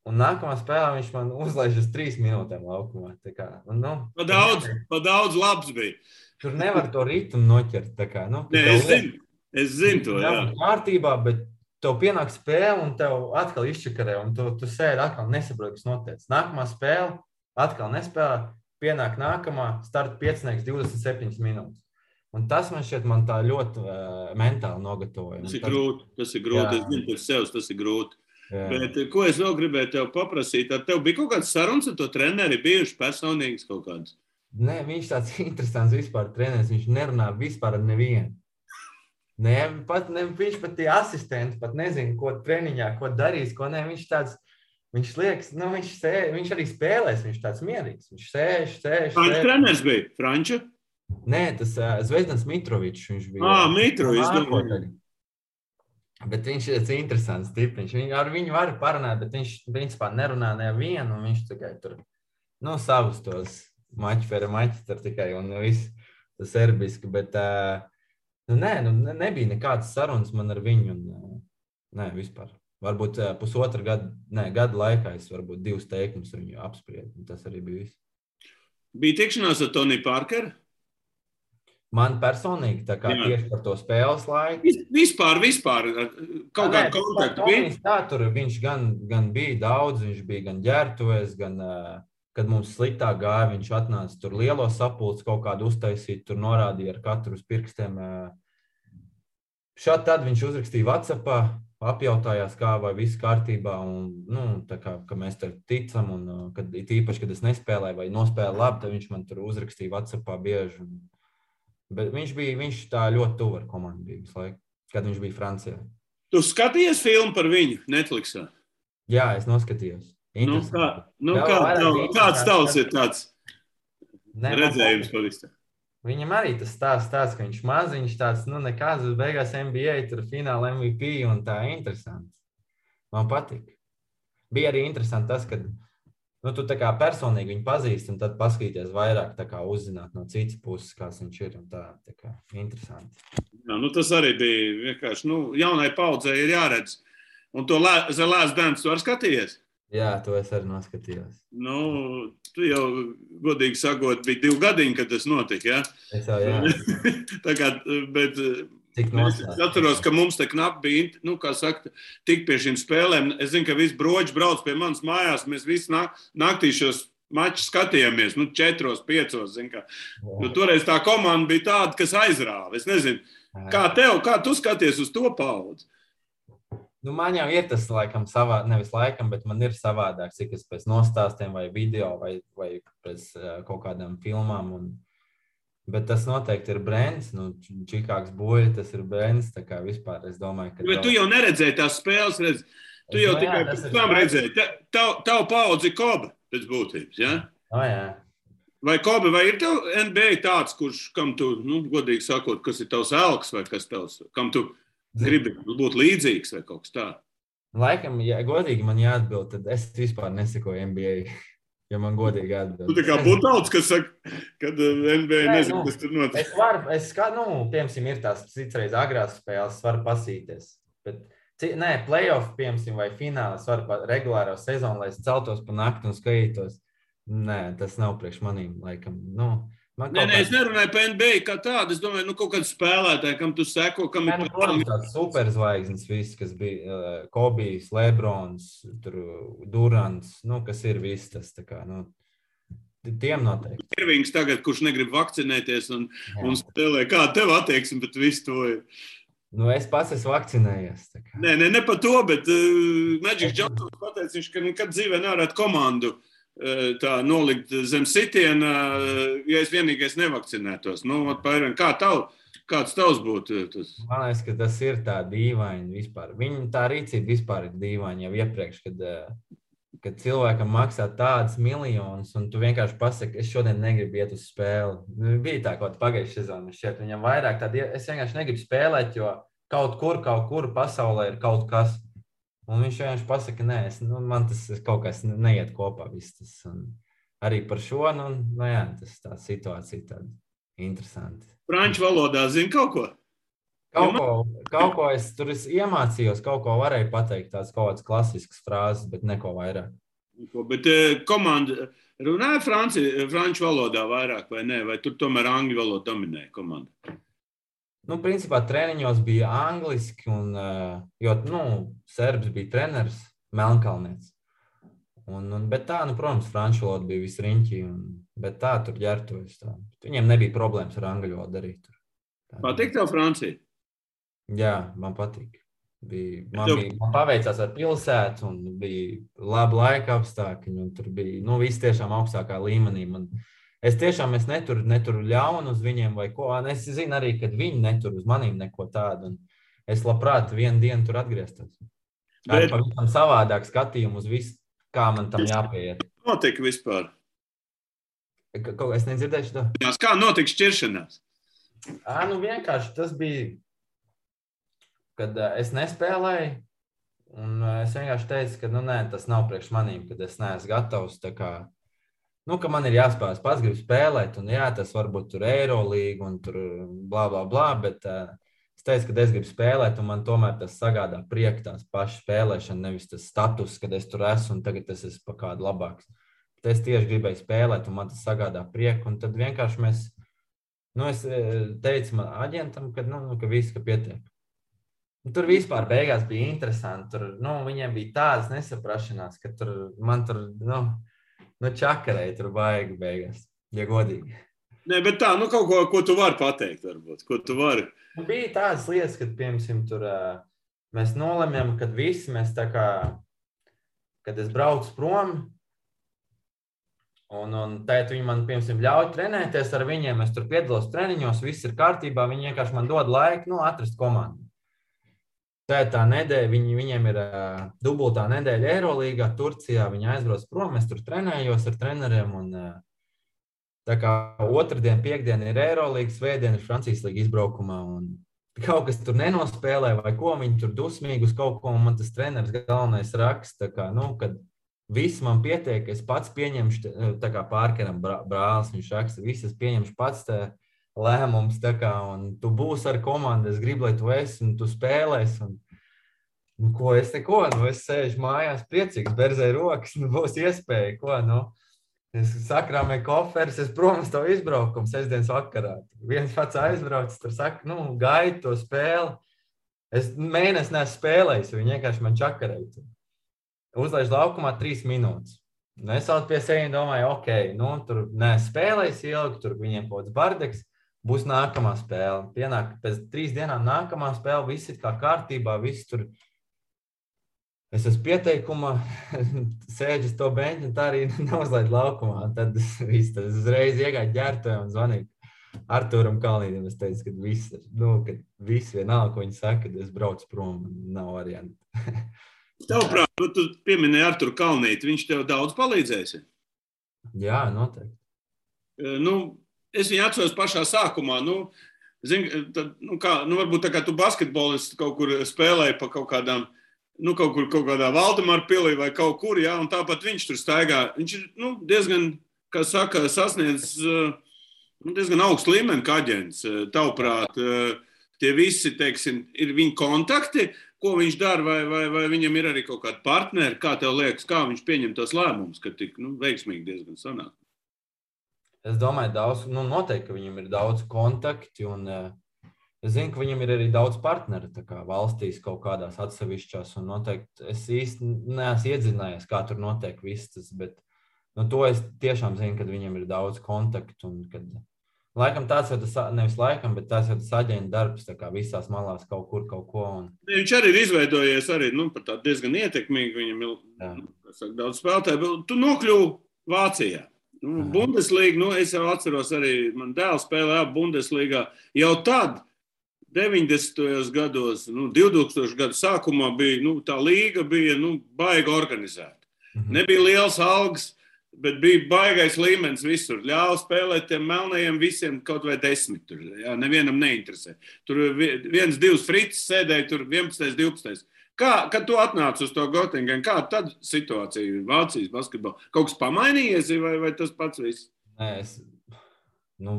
Speaker 3: un nākamā spēlē viņš man uzlaiž uz 3 minūtēm laukumā. Tā kā,
Speaker 2: Pa daudz labs bija.
Speaker 3: Tur nevar to ritmu noķert. Tā kā,
Speaker 2: es zinu to, jā.
Speaker 3: Kārtībā, bet tev pienāk spēle, un tev atkal izčakarē, un tu sēdi atkal nesaproti, kas notiek. Nākamā spēle, atkal nespēlē, pienāk nākamā, starta piecinieks 27 minūtes. Un tas man šķiet, man tā ļoti mentāli nogatavoja.
Speaker 2: Tas ir grūti. Es zinu, pēc sevis tas ir grūti. Jā. Bet ko es vēl gribēju tev paprasīt? Ar tev bija kaut kāds sarunas ar to treneri, bijuši personīgas kaut kādas?
Speaker 3: Nē, viņš tāds interesants vispār treneris. Viņš nerunā vispār ar nevienu. Viņš pat tie asistenti pat nezina, ko treniņā, ko darīs, ko ne. Viņš tāds, viņš liekas, viņš arī spēlēs, viņš tāds mierīgs. Viņš sēž.
Speaker 2: Franču treneris bija? Franču?
Speaker 3: Nē, tas Zvezdans Mitrovičs, viņš bija.
Speaker 2: Mitrovičs.
Speaker 3: Bet viņš ir interesants tipiņš. Ar viņu var parunāt, bet viņš principā nerunā nevienu, un viņš tikai tur, savus tos maķi tur tikai, un viss tas serbiski, bet, nebija nekādas sarunas man ar viņu, un, vispār. Varbūt gada laikā es varbūt 2 teikumus ar viņu apspriedu, un tas arī bija viss.
Speaker 2: Bija tikšanās ar Tony Parkeru?
Speaker 3: Man personīgi, tā kā tieši par to spēles laiku.
Speaker 2: Vispār, kaut kādu kontaktu bija?
Speaker 3: Tur viņš gan bija daudz, viņš bija gan ģērtuvēs, gan, kad mums sliktāk gāja, viņš atnāca tur lielo sapulci kaut kādu uztaisīt, tur norādīja ar katru uz pirkstiem. Tad viņš uzrakstīja WhatsAppā, apjautājās, kā vai viss kārtībā, un, tā kā, ka mēs tur ticam, un īpaši, kad es nespēlēju vai nospēlēju labi, tad viņš man tur uzrakstīja WhatsAppā bieži. Bet viņš tā ļoti tuvu ar komandu bija visu laiku, kad viņš bija Francijā.
Speaker 2: Tu skatījies filmu par viņu Netflixā?
Speaker 3: Jā, es noskatījos.
Speaker 2: Kāds tavs ir tāds redzējums pavisam?
Speaker 3: Viņam arī tas stāsts, ka viņš maziņš tāds, nekāds uz beigās NBA, tur fināla MVP un tā interesants. Man patīk. Bija arī interesanti tas, kad tu tā kā personīgi viņu pazīsti, un tad paskatīties vairāk, tā kā uzzināt no citas puses, kāds viņš ir, un tā kā interesanti.
Speaker 2: Jā, tas arī bija vienkārši, jaunai paudzei ir jāredz. Un to The Last Dance tu arī skatījies?
Speaker 3: Jā, to es arī noskatījos.
Speaker 2: Tu jau, godīgi sakot, bija 2 gadiņi, kad tas notika, jā?
Speaker 3: Es jau, jā.
Speaker 2: Tā kā, bet es atceros, ka mums te knapi bija, kā saka, tik pie šīm spēlēm. Es zinu, ka visi broģi brauc pie manas mājās, mēs visi naktī šos mačus skatījāmies, 4, 5, zin kā. Toreiz tā komanda bija tāda, kas aizrāva. Es nezinu, kā tu skaties uz to paudzi?
Speaker 3: Man jau ir tas, laikam, nevis laikam, bet man ir savādāk, cik es pēc nostāstiem vai video vai pēc kaut kādām filmām. Bet tas noteikti ir brands, Čikāgas Buļļi, tas ir brands, tā kā vispār es domāju, ka...
Speaker 2: Bet tu jau neredzēji tās spēles, tu jau tikai pēc tam redzēji. Tavu paudzi Kobe pēc būtības, jā?
Speaker 3: Jā.
Speaker 2: Vai Kobe, vai ir tev NBA tāds, kam tu, godīgi sakot, kas ir tavs elks vai kas tavs, kam tu gribi būt līdzīgs vai kaut kas tā?
Speaker 3: Laikam, ja godīgi man jāatbild, tad es vispār nesekoju NBA, ja man godīgi jāatbild.
Speaker 2: Tu tā kā Butauts, kas saka, kad NBA nezinu, kas tur notiek.
Speaker 3: Piemēram, ir tās citreiz agrās spēles, varu pasīties. Bet, playoff, piemēram, vai fināls, varu regulāro sezonu, lai es celtos pa nakti un skatītos. Nē, tas nav priekš manīm, laikam,
Speaker 2: es nerunāju par NBA kā tādu. Es domāju, kaut kāds spēlētāji, kam tu seko, kam ir
Speaker 3: tāds superzvaigznes viss, kas bija Kobijs, Lebrons, Durants, kas ir viss tas, tā kā, tiem noteikti.
Speaker 2: Irvings tagad, kurš negrib vakcinēties un spēlē, kā tev attieksme, bet viss to ir.
Speaker 3: Es pats esmu vakcinējies.
Speaker 2: Ne par to, bet Magic Johnson pateica, viņš, ka nekad dzīvē nevarētu komandu tā nolikt zem sitiena, ja es vienīgais nevakcinētos. Kā Kāds tavs būtu? Tas?
Speaker 3: Man liekas, ka tas ir tā dīvaini vispār. Viņa tā rīcība vispār ir dīvaini jau iepriekš, kad cilvēkam maksā tādas miljonus, un tu vienkārši pasaki, es šodien negribu iet uz spēli. Bija tā kaut pagājušajā sezonā, šķiet, viņam vairāk tādi, es vienkārši negribu spēlēt, jo kaut kur pasaulē ir kaut kas. Un viņš vienkārši pasaka, nē, man tas kaut kas neiet kopā. Viss tas. Un arī par šo, jā, tas tā situācija tāda interesanti.
Speaker 2: Franču valodā zini kaut ko?
Speaker 3: Kaut ko es tur iemācījos, kaut ko varēju pateikt, tās kaut kādas klasiskas frāzes, bet neko vairāk.
Speaker 2: Bet komanda runāja franču valodā vairāk vai ne? Vai tur tomēr angļu valoda dominēja komanda?
Speaker 3: Principā treniņos bija angliski, jo serbs bija treneris, Melnkalnietis. Bet tā, protams, franču valoda bija visriņķī, bet tā tur ģertojas. Viņiem nebija problēmas ar angļu valodu arī tur.
Speaker 2: Patīk tev Francija?
Speaker 3: Jā, man patīk. Man paveicās ar pilsētu, un bija labi laika apstākļi, un tur bija viss tiešām augstākā līmenī. Es neturu ļaunu uz viņiem vai ko. Es zinu arī, ka viņi netur uz manīm neko tādu. Es labprāt vienu dienu tur atgrieztos. Ar pavisam savādāk skatījumu uz visu, kā man tam jāpieiet.
Speaker 2: Notika vispār?
Speaker 3: Es nedzirdēšu to.
Speaker 2: Kā notika šķiršanās?
Speaker 3: Vienkārši tas bija, kad es nespēlēju, un es vienkārši teicu, ka nē, tas nav priekš manīm, kad es neesmu gatavs, tā kā, ka man ir jāspēlē, pats gribu spēlēt, un jā, tas varbūt tur Eirolīga, un tur blā, blā, blā, bet es teicu, ka es gribu spēlēt, un man tomēr tas sagādā prieku tās pašas spēlēšana, nevis tas status, kad es tur esmu, un tagad es esmu pa kādu labāks. Bet es tieši gribēju spēlēt, un man tas sagādā prieku, un tad vienkārši es teicu man aģentam, ka viss, ka pietiek. Tur vispār beigās bija interesanti. Tur, viņiem bija tādas nesaprašanās, ka man čakarēja tur baigi beigās, ja godīgi.
Speaker 2: Nē, bet tā, kaut ko tu vari pateikt, varbūt, ko tu vari.
Speaker 3: Bija tādas lietas, kad, piemēram, tur mēs nolemjam, kad visi mēs tā kā, kad es braucu prom, un tēt viņi man, piemēram, ļauj trenēties ar viņiem, es tur piedalos treniņos, viss ir kārtībā, viņi vienkārši man dod laiku, atrast komandu. Tā nedēļa, viņiem ir dubultā nedēļa Eirolīgā, Turcijā, viņi aizbrauc prom, es tur trenējos ar treneriem, un tā kā otrdien, piekdien ir Eirolīga, svētdien ir Francijas līga izbraukumā, un kaut kas tur nenospēlē, vai ko, viņi tur dusmīgi uz kaut ko, un man tas treneris galvenais raksta, kā, kad viss man pietiek, es pats pieņemšu, tā kā Pārkeram brālis, viņš raksta, viss es pieņemšu pats lēmums, tā kā, un tu būsi ar komandu, es gribu, lai tu esi, un tu spēlēsi, un ko es neko, es sēžu mājās priecīgs, berzēju rokas, būs iespēja, ko, es sakrāmēju koferis, es prom uz to izbraukumu sestdienas vakarā. Viens pats aizbraucis, tur saka, gaidi to spēli. Es mēnesi neesmu spēlējis, viņi vienkārši man čakarēja. Uzlaiž laukumā 3 minūtes. Es vēl pie sevi domāju, tur spēlējis ilgi, tur viņiem kaut kāds bardeks, būs nākamā spēle. Pienāk pēc 3 dienām nākamā spēle, viss ir kā kārtībā, viss tur. Es esmu pieteikumā, sēdžu uz to beņķi, un tā arī neuzlaid laukumā. Tad es uzreiz iegāju ģērtuvē un zvanīju Artūram Kalnītam. Es teicu, ka viss vienalga, ko viņi saka, kad es braucu prom, nav varianti.
Speaker 2: Tavuprāt, tu pieminēji Arturu Kalnīti, viņš tev daudz palīdzēsi?
Speaker 3: Jā, noteikti.
Speaker 2: Es viņu atceros pašā sākumā, varbūt tā kā tu basketbolists kaut kur spēlēji pa kaut kādām, kaut kādā Valdemāra pilī vai kaut kur, jā, un tāpat viņš tur staigā. Viņš ir, diezgan, kā saka, sasniedz diezgan augstu līmeni kā aģents. Tavuprāt, tie visi, teiksim, ir viņa kontakti, ko viņš dara, vai viņam ir arī kaut kādi partneri, kā tev liekas, kā viņš pieņem tos lēmumus, ka tik, veiksmīgi diezgan sanāk?
Speaker 3: Es domāju, noteikti, ka viņam ir daudz kontakti, un es zinu, ka viņam ir arī daudz partneri, tā kā valstīs kaut kādās atsevišķās, un noteikti es īsti neesmu iedzinājies, kā tur notiek viss tas, bet to es tiešām zinu, ka viņam ir daudz kontaktu, un kad laikam tāds jau tas, nevis laikam, bet tas jau tas aģenta darbs, tā kā visās malās kaut kur, kaut ko.
Speaker 2: Viņš arī ir izveidojies arī, par tādu diezgan ietekmīgi, viņam ir daudz spēlētāju. Tu nokļuvi Vācijā. Bundeslīga, es jau atceros arī, man dēls spēlēja Bundeslīgā. Jau tad 90. gados, 2000. Gadu sākumā bija, tā līga bija, baigi organizēta. Nebija liels algas, bet bija baigais līmenis visur. Ļāva spēlēt tiem melnajiem visiem kaut vai 10. Tur, jā, nevienam neinteresē. Tur 1-2 fricis sēdēja, tur 11. 12. Kad tu atnāc uz to Göttingen, kā tad situācija Vācijas basketbolā? Kaut kas pamainījies vai tas pats viss?
Speaker 3: Nē,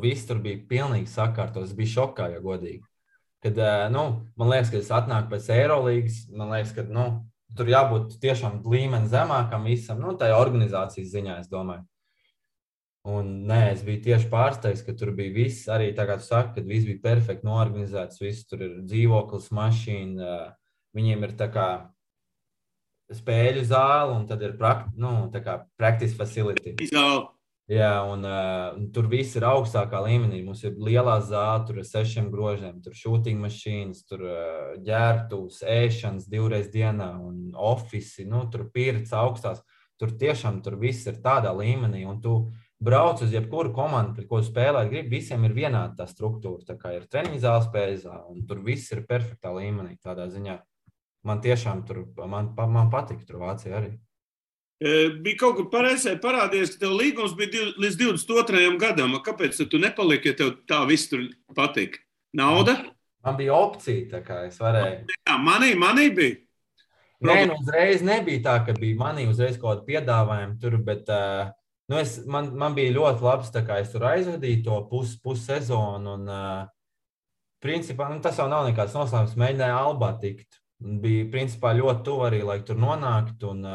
Speaker 3: viss tur bija pilnīgi sakārtos. Es biju šokā, ja godīgi. Kad, man liekas, ka es atnāku pēc Eirolīgas, man liekas, ka, tur jābūt tiešām līmeni zemākam visam, tā organizācijas ziņā, es domāju. Un, es biju tieši pārsteigts, ka tur bija viss, arī tā kā tu saki, kad viss bija perfekti noorganizēts, viss tur ir dzīvoklis, mašīna, viņiem ir tā kā spēļu zāle un tad ir practice facility.
Speaker 2: Zāle.
Speaker 3: Jā, un tur viss ir augstākā līmenī. Mums ir lielā zāle, tur ir 6 grožiem, tur shooting mašīnas, tur ģērbtuves, ēšanas 2 reizes dienā un ofisi, tur pirts augstās. Tur tiešām tur viss ir tādā līmenī, un tu brauc uz jebkuru komandu, pret ko spēlēt gribi, visiem ir vienāda tā struktūra. Tā kā ir treniņu zāle, spēļu zāle, un tur viss ir perfektā līmenī tādā ziņā. Man tiešām tur, man patika tur Vācija arī.
Speaker 2: Bija kaut kur pareizē parādījies, ka tev līgums bija līdz 22. gadam. Kāpēc tu nepaliki, ja tev tā viss tur patika? Nauda?
Speaker 3: Man bija opcija, tā kā es varēju.
Speaker 2: Jā, manī bija.
Speaker 3: Uzreiz nebija tā, ka bija manī uzreiz kaut kāda piedāvājuma tur, bet man bija ļoti labs, tā kā es tur aizvadīju to pussezonu un principā, tas jau nav nekāds noslēpums, mēģināju Albā tikt. Bija principā ļoti tuvu arī, lai tur nonāktu un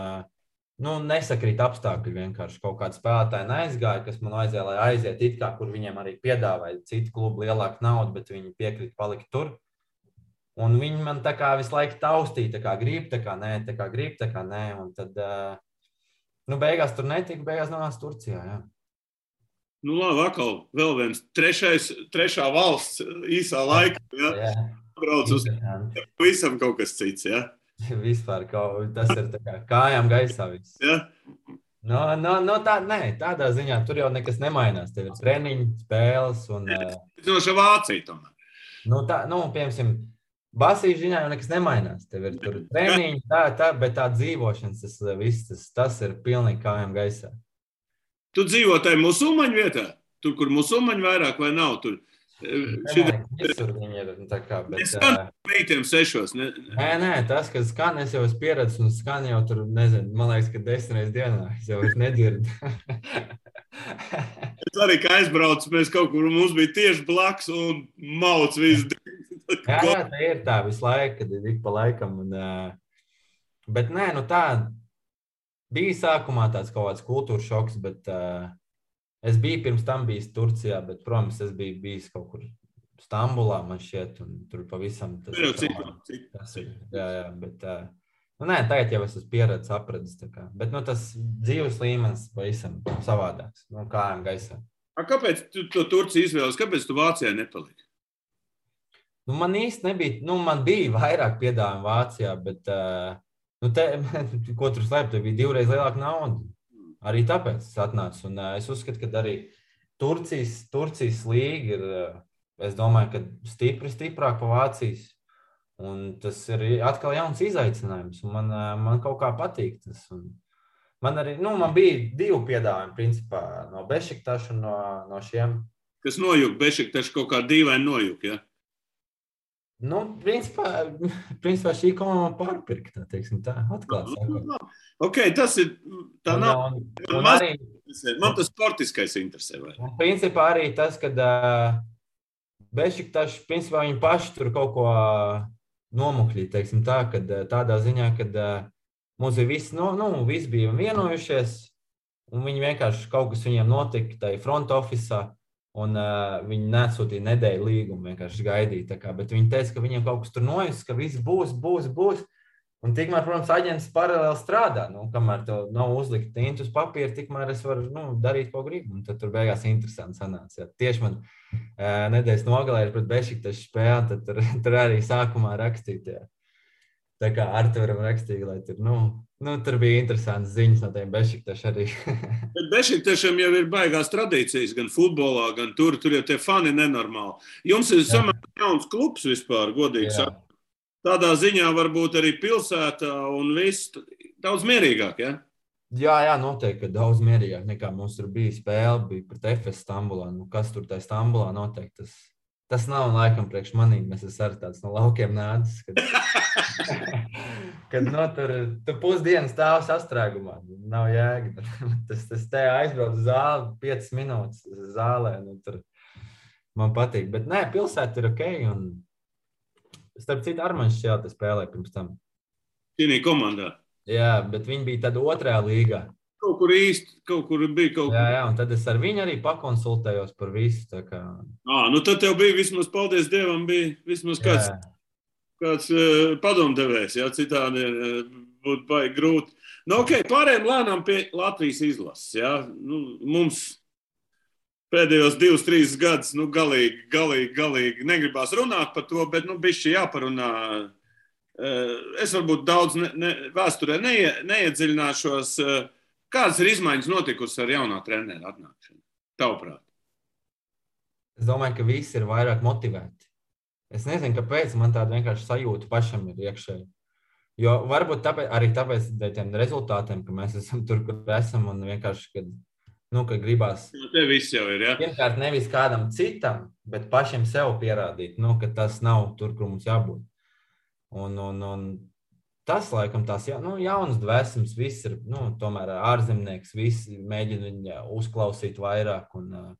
Speaker 3: nesakrīt apstākļi vienkārši. Kaut kādi spēlētāji neaizgāja, kas man vajadzēja, lai aiziet it kā, kur viņiem arī piedāvāja citu klubu lielāku naudu, bet viņi piekrita palikt tur. Un viņi man tā kā visu laiku taustīja, tā kā grib, tā kā nē, tā kā grib, tā kā nē. Un tad, beigās tur netika, beigās nonāca Turcijā, jā.
Speaker 2: Labi, atkal vēl viens trešā valsts īsā laikā, jā. Brauc uz visam kaut kas cits, jā.
Speaker 3: Vispār tas ir tā kā kājām gaisā viss.
Speaker 2: Ja?
Speaker 3: Tādā ziņā tur jau nekas nemainās. Tev ir treniņi, spēles un...
Speaker 2: Zinoša Vācija tomēr.
Speaker 3: Piemēram, basīšu ziņā jau nekas nemainās. Tev ir tur treniņi, bet tā dzīvošanas, tas ir pilnīgi kājām gaisā.
Speaker 2: Tu dzīvo tajā musulmaņu vietā? Tur, kur musulmaņu vairāk vai nav? Tur...
Speaker 3: Visur viņi ir tā kā, bet...
Speaker 2: Es skan meitiem 6.
Speaker 3: Nē, tas, ka skan, es jau esmu pieredzis un skan jau tur, nezinu, man liekas, ka 10 reizes dienā. Es jau vairs nedzirdu.
Speaker 2: Es arī, kā aizbraucu, mēs kaut kur, mums bija tieši blaks un mauc visu.
Speaker 3: Jā, tā ir tā visu laiku, kad ir ik pa laikam. Bet nē, tā bija sākumā tāds kaut kāds kultūras šoks, bet... Es biju pirms tam bijis Turcijā, bet, protams, es biju bijis kaut kur Stambulā, man šķiet, un tur pavisam tas ir. Jā, bet, tagad jau es esmu pieredzis, apradis, tā kā. Bet, tas dzīves līmenis pavisam savādāks, kājām gaisā.
Speaker 2: Kāpēc tu to Turciju izvēlies? Kāpēc tu Vācijā nepaliki?
Speaker 3: Man īsti nebija, man bija vairāk piedāvājumu Vācijā, bet, ko tur slēpt, tev bija 2 reizes lielāka nauda. Arī tāpēc es atnācu, un es uzskatu, ka arī Turcijas līga ir, es domāju, ka stiprāk pa Vācijas, un tas ir atkal jauns izaicinājums, un man kaut kā patīk tas. Un man arī, man bija 2 piedāvājumi, principā, no Bešiktaša un no šiem.
Speaker 2: Kas nojuk, Bešiktaša kaut kā dīvaini nojuk, ja?
Speaker 3: Principā šī komanda pārpirka, teiksim tā, atklāt sakot.
Speaker 2: Ok, tas ir, tā nav. Man tas sportiskais interesē.
Speaker 3: Principā arī tas, kad Bešiktaši, principā viņi paši tur kaut ko nomukļīja, teiksim tā, kad tādā ziņā, kad mums ir visi bija vienojušies, un viņi vienkārši kaut kas viņiem notika tai front officeā, un viņi nesūtīja nedēļu līgumu, vienkārši gaidīja. Tā kā, bet viņi teica, ka viņiem kaut kas tur nojus, ka viss būs. Un tikmēr, protams, aģents paralēli strādā. Kamēr tev nav uzlikt tintu uz papīra, tikmēr es varu darīt, ko gribu. Un tad tur beigās interesanti sanāca. Ja. Tieši man nedēļas nogalē ir pret Bešiktašu spēli, tad tur arī sākumā rakstīt. Ja. Tā kā Arturam rakstīja, lai tur, tur bija interesants ziņas no tiem Bešiktaši arī.
Speaker 2: Bet Bešiktašiem jau ir baigās tradīcijas, gan futbolā, gan tur jau tie fani nenormāli. Jums ir samērā jauns klubs vispār, godīgi sakot. Tādā ziņā varbūt arī pilsētā un viss daudz mierīgāk, ja?
Speaker 3: Jā, noteikti, ka daudz mierīgāk nekā mums tur bija spēle, bija pret FS Stambulā. Kas tur tā Stambulā noteikti, tas nav laikam priekš manīm. Mēs esam arī tāds no laukiem nācis, kad tu pusdienas stāv sastrēgumā. Nav jēga. Tas te aizbrauc uz zāli 5 minūtes zālē. Tur man patīk. Bet nē, pilsēta ir ok. Un starp citu Armaņš šajā spēlē pirms tam.
Speaker 2: Šī komandā.
Speaker 3: Jā, bet viņi bija tad 2. līgā.
Speaker 2: Kaut kur bija kaut kur.
Speaker 3: Jā, un tad es ar viņu arī pakonsultējos par visu. Tā kā...
Speaker 2: tad tev bija vismaz, paldies Dievam, bija vismaz kāds padomdevējs, jā, citādi būtu baigi grūti. Pārējiem lēnām pie Latvijas izlases, jā. Mums pēdējos 2-3 gadus, galīgi negribās runāt par to, bet, bišķi jāparunā. Es varbūt daudz vēsturē neiedziļināšos. Kādas ir izmaiņas notikusi ar jaunā trenera atnākšanu? Tavuprāt?
Speaker 3: Es domāju, ka visi ir vairāk motivēti. Es nezinu, kāpēc man tāda vienkārši sajūta pašam ir iekšēji. Jo varbūt tāpēc tiem rezultātiem, ka mēs esam tur, kur esam, un vienkārši, kad gribās...
Speaker 2: Te viss jau ir, jā?
Speaker 3: Pirmkārt, nevis kādam citam, bet pašiem sev pierādīt, ka tas nav tur, kur mums jābūt. Un tas, laikam, tās jaunas dvēsmas, viss ir, tomēr ārzemnieks, visi mēģina viņu uzklausīt vairāk un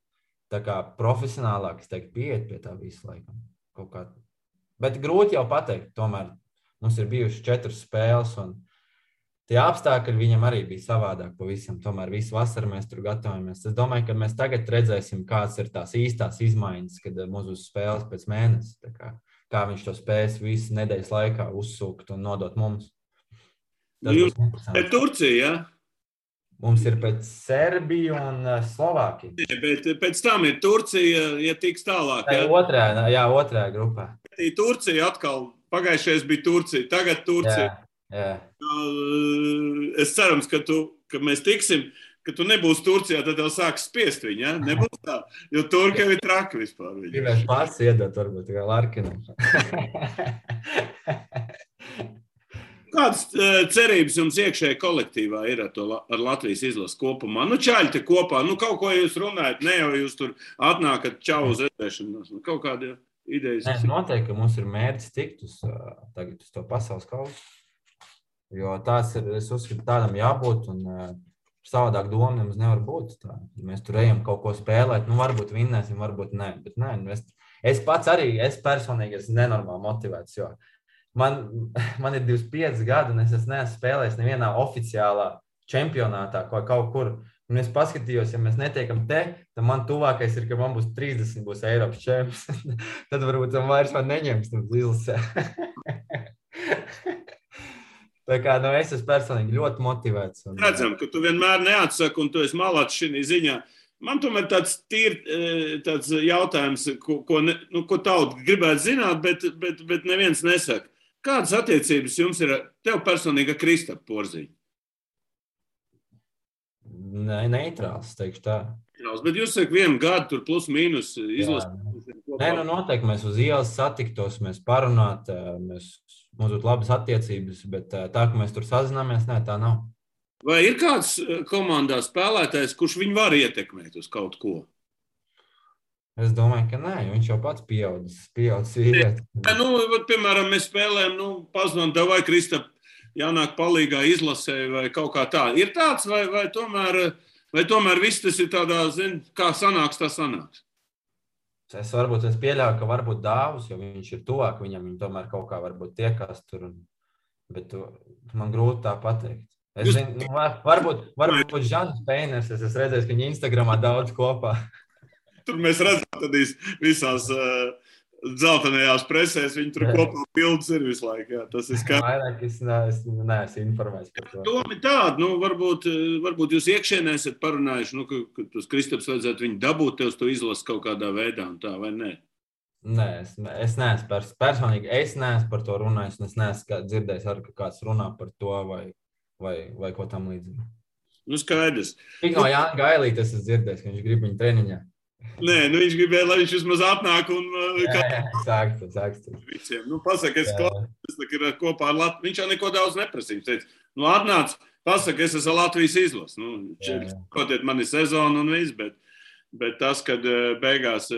Speaker 3: tā kā profesionālāk, es teiktu, pieiet pie tā visu laikam. Kaut kā. Bet grūti jau pateikt, tomēr mums ir bijuši 4 spēles un tie apstākļi viņam arī bija savādāk pavisam. Tomēr visu vasaru mēs tur gatavojamies. Es domāju, ka mēs tagad redzēsim, kāds ir tās īstās izmaiņas, kad mums uz spēles pēc mēnesi. Kā viņš to spēs visu nedēļas laikā uzsūkt un nodot mums.
Speaker 2: Jums ir Turcija, ja?
Speaker 3: Mums ir pēc Serbiju un Slovākiju.
Speaker 2: Bet pēc tam ir Turcija, ja tiks tālāk, ja?
Speaker 3: Otrajā grupā.
Speaker 2: Turcija atkal, pagājušais bija Turcija, tagad Turcija.
Speaker 3: Jā.
Speaker 2: Es cerams, ka mēs tiksim, ka tu nebūsi Turcijā, tad tev sāks spiest viņu, ja? Nebūs tā, jo Turka ir traki vispār.
Speaker 3: Gribēs pats iedot, varbūt, kā Larkinam.
Speaker 2: Kādas cerības jums iekšēji kolektīvā ir ar Latvijas izlases kopumā? Čaļi te kopā, kaut ko jūs runājat, ne jau jūs tur atnākat čau uz redzēšanos, kaut kāda idejas.
Speaker 3: Nē, noteikti, ka mums ir mērķis tikt tagad uz to pasaules kausu, jo tās ir, es uzskatu, tādam jābūt un savādāk doma mums nevar būt. Tā. Mēs tur ejam kaut ko spēlēt, varbūt vinnēsim, varbūt nē. Bet nē, es pats arī, es personīgi esmu nenormāli motivēts, jo man ir 25 gadi un es neesmu spēlējis nevienā oficiālā čempionātā kaut kur. Un es paskatījos, ja mēs netiekam te, tad man tuvākais ir, ka man būs 30, būs Eiropas čemps. Tad varbūt man vairs neņems izlasē. Tā kā es esmu personīgi ļoti motivēts.
Speaker 2: Redzam, ka tu vienmēr neatsaki un tu esi malāts šī ziņā. Man tomēr tāds jautājums, ko tauta gribētu zināt, bet neviens nesaka. Kādas attiecības jums ir tev personīgi ar Kristapu Porziņu?
Speaker 3: Neitrāls, teikšu tā.
Speaker 2: Bet jūs sakat, 1 gadu tur plus mīnus izlasīt.
Speaker 3: Nē, noteikti mēs uz ielas satiktos, mēs parunāt, mums būtu labas attiecības, bet tā, ka mēs tur sazināmies, nē, tā nav.
Speaker 2: Vai ir kāds komandā spēlētājs, kurš viņu var ietekmēt uz kaut ko?
Speaker 3: Es domāju, ka nē, viņš jau pats pieaudzis vīrieti.
Speaker 2: Piemēram, mēs spēlējam, pazinām, vai Kristap jānāk palīgā izlasē vai kaut kā tā. Ir tāds, vai tomēr viss tas ir tādā, kā sanāks, tā sanāks?
Speaker 3: Es pieļauju, ka varbūt Dāvus, jo viņš ir tuvāk viņam, viņi tomēr kaut kā varbūt tiekās tur, bet man grūti tā pateikt. Es zinu, varbūt Žans Peiners, es esmu redzējis, ka viņi Instagramā daudz kopā.
Speaker 2: Tur mēs redzam tādīs visās dzeltenajās presēs, viņi tur kopā bildes ir visu laiku. Jā, tas ir skaidrs.
Speaker 3: Vairāk es neesmu informēts par to.
Speaker 2: Doma ir tāda, varbūt jūs iekšienē esat parunājuši, ka tos Kristaps vajadzētu viņu dabūt tev to izlases kaut kādā veidā un tā, vai ne?
Speaker 3: Nē, es neesmu personīgi, es neesmu par to runājis, un es neesmu dzirdējis arī, ka kāds runā par to vai ko tam līdzīgu.
Speaker 2: Nu, skaidrs.
Speaker 3: Tik no Jāna Gailīta es esmu dzirdējis, ka viņš grib viņu treniņā.
Speaker 2: Nē, viņš gribēja, lai viņš vismaz atnāk un...
Speaker 3: Sākst.
Speaker 2: Nu, pasaka, es ir kopā ar Latviju. Viņš jau neko daudz neprasīja. Viņš teica, nu, atnāc, pasaka, es esmu Latvijas izlas. Nu, kotiet mani sezonu un viss, bet tas, kad beigās,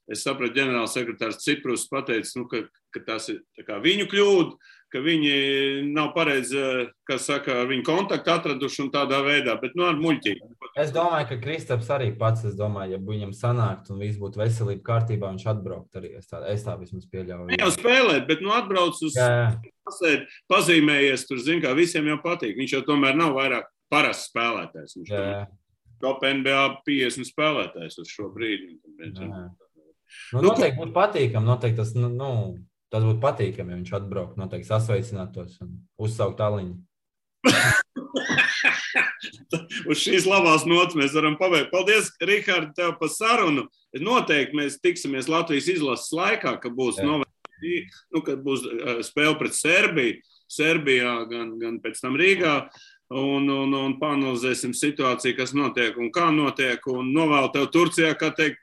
Speaker 2: es sapratu, ģenerāls sekretārs Ciprus pateica, nu, ka tas ir tā kā viņu kļūda, ka viņi nav pareizi, kas saka, viņu kontaktu atraduši un tādā veidā, bet nu ar muļķīgi.
Speaker 3: Es domāju, ka Kristaps arī pats, ja viņam sanākt un viss būtu veselība kārtībā, viņš atbraukt arī. Es tā vismaz pieļauju.
Speaker 2: Ne jau spēlēt, bet nu atbrauc uz pasēd, pazīmējies, tur zin, kā visiem jau patīk. Viņš jau tomēr nav vairāk parasts spēlētājs. Viņš top NBA 50 spēlētājs uz šo brīdi.
Speaker 3: Noteikti būtu patīkam, noteikti tas būtu patīkami, ja viņš atbraukt, noteikti sasveicinātos un uzsaukt aliņu.
Speaker 2: Uz šīs labās nots mēs varam pabeigt. Paldies, Rihard, tev par sarunu. Noteikti mēs tiksimies Latvijas izlases laikā, kad būs kad būs spēle pret Serbiju, Serbijā, gan pēc tam Rīgā, un panalizēsim situāciju, kas notiek un kā notiek, un novēlu tev Turcijā, kā teikt,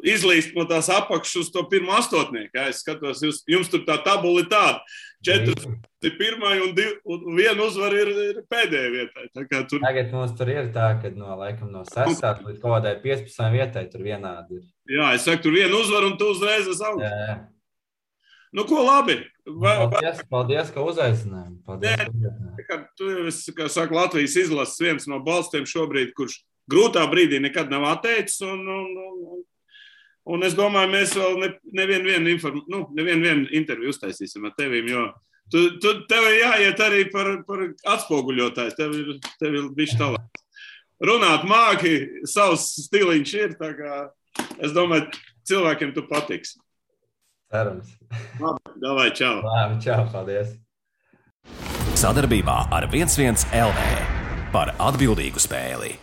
Speaker 2: izlīst no tās apakšas uz to pirmo astotnieku. Es skatos, jums tur tā tabula ir tāda. 4 ir pirmai un 1 uzvara ir pēdējai vietai.
Speaker 3: Tagad mums tur ir tā, ka no 6. līdz kaut kādai 15. vietai tur vienādi ir. Jā,
Speaker 2: es saku, tur 1 uzvara un tu uzreiz esi augstu. Nu, ko labi?
Speaker 3: Paldies, ka uzaicinājām.
Speaker 2: Tu esi, kā saka, Latvijas izlases viens no balstiem šobrīd, kurš grūtā brīdī nekad nav atteicis, un es domāju, mēs vēl nevienu interviju uztaisīsim ar tevīm, jo tev ir jāiet arī par atspoguļotājs, tev ir bišķi talants. Runāt māki, savs stiliņš ir, tā kā es domāju, cilvēkiem tu patiks.
Speaker 3: Cerams.
Speaker 2: Labi, davai, čau.
Speaker 3: Labi, čau, paldies.
Speaker 1: Sadarbībā ar 11 LV par atbildīgu spēli.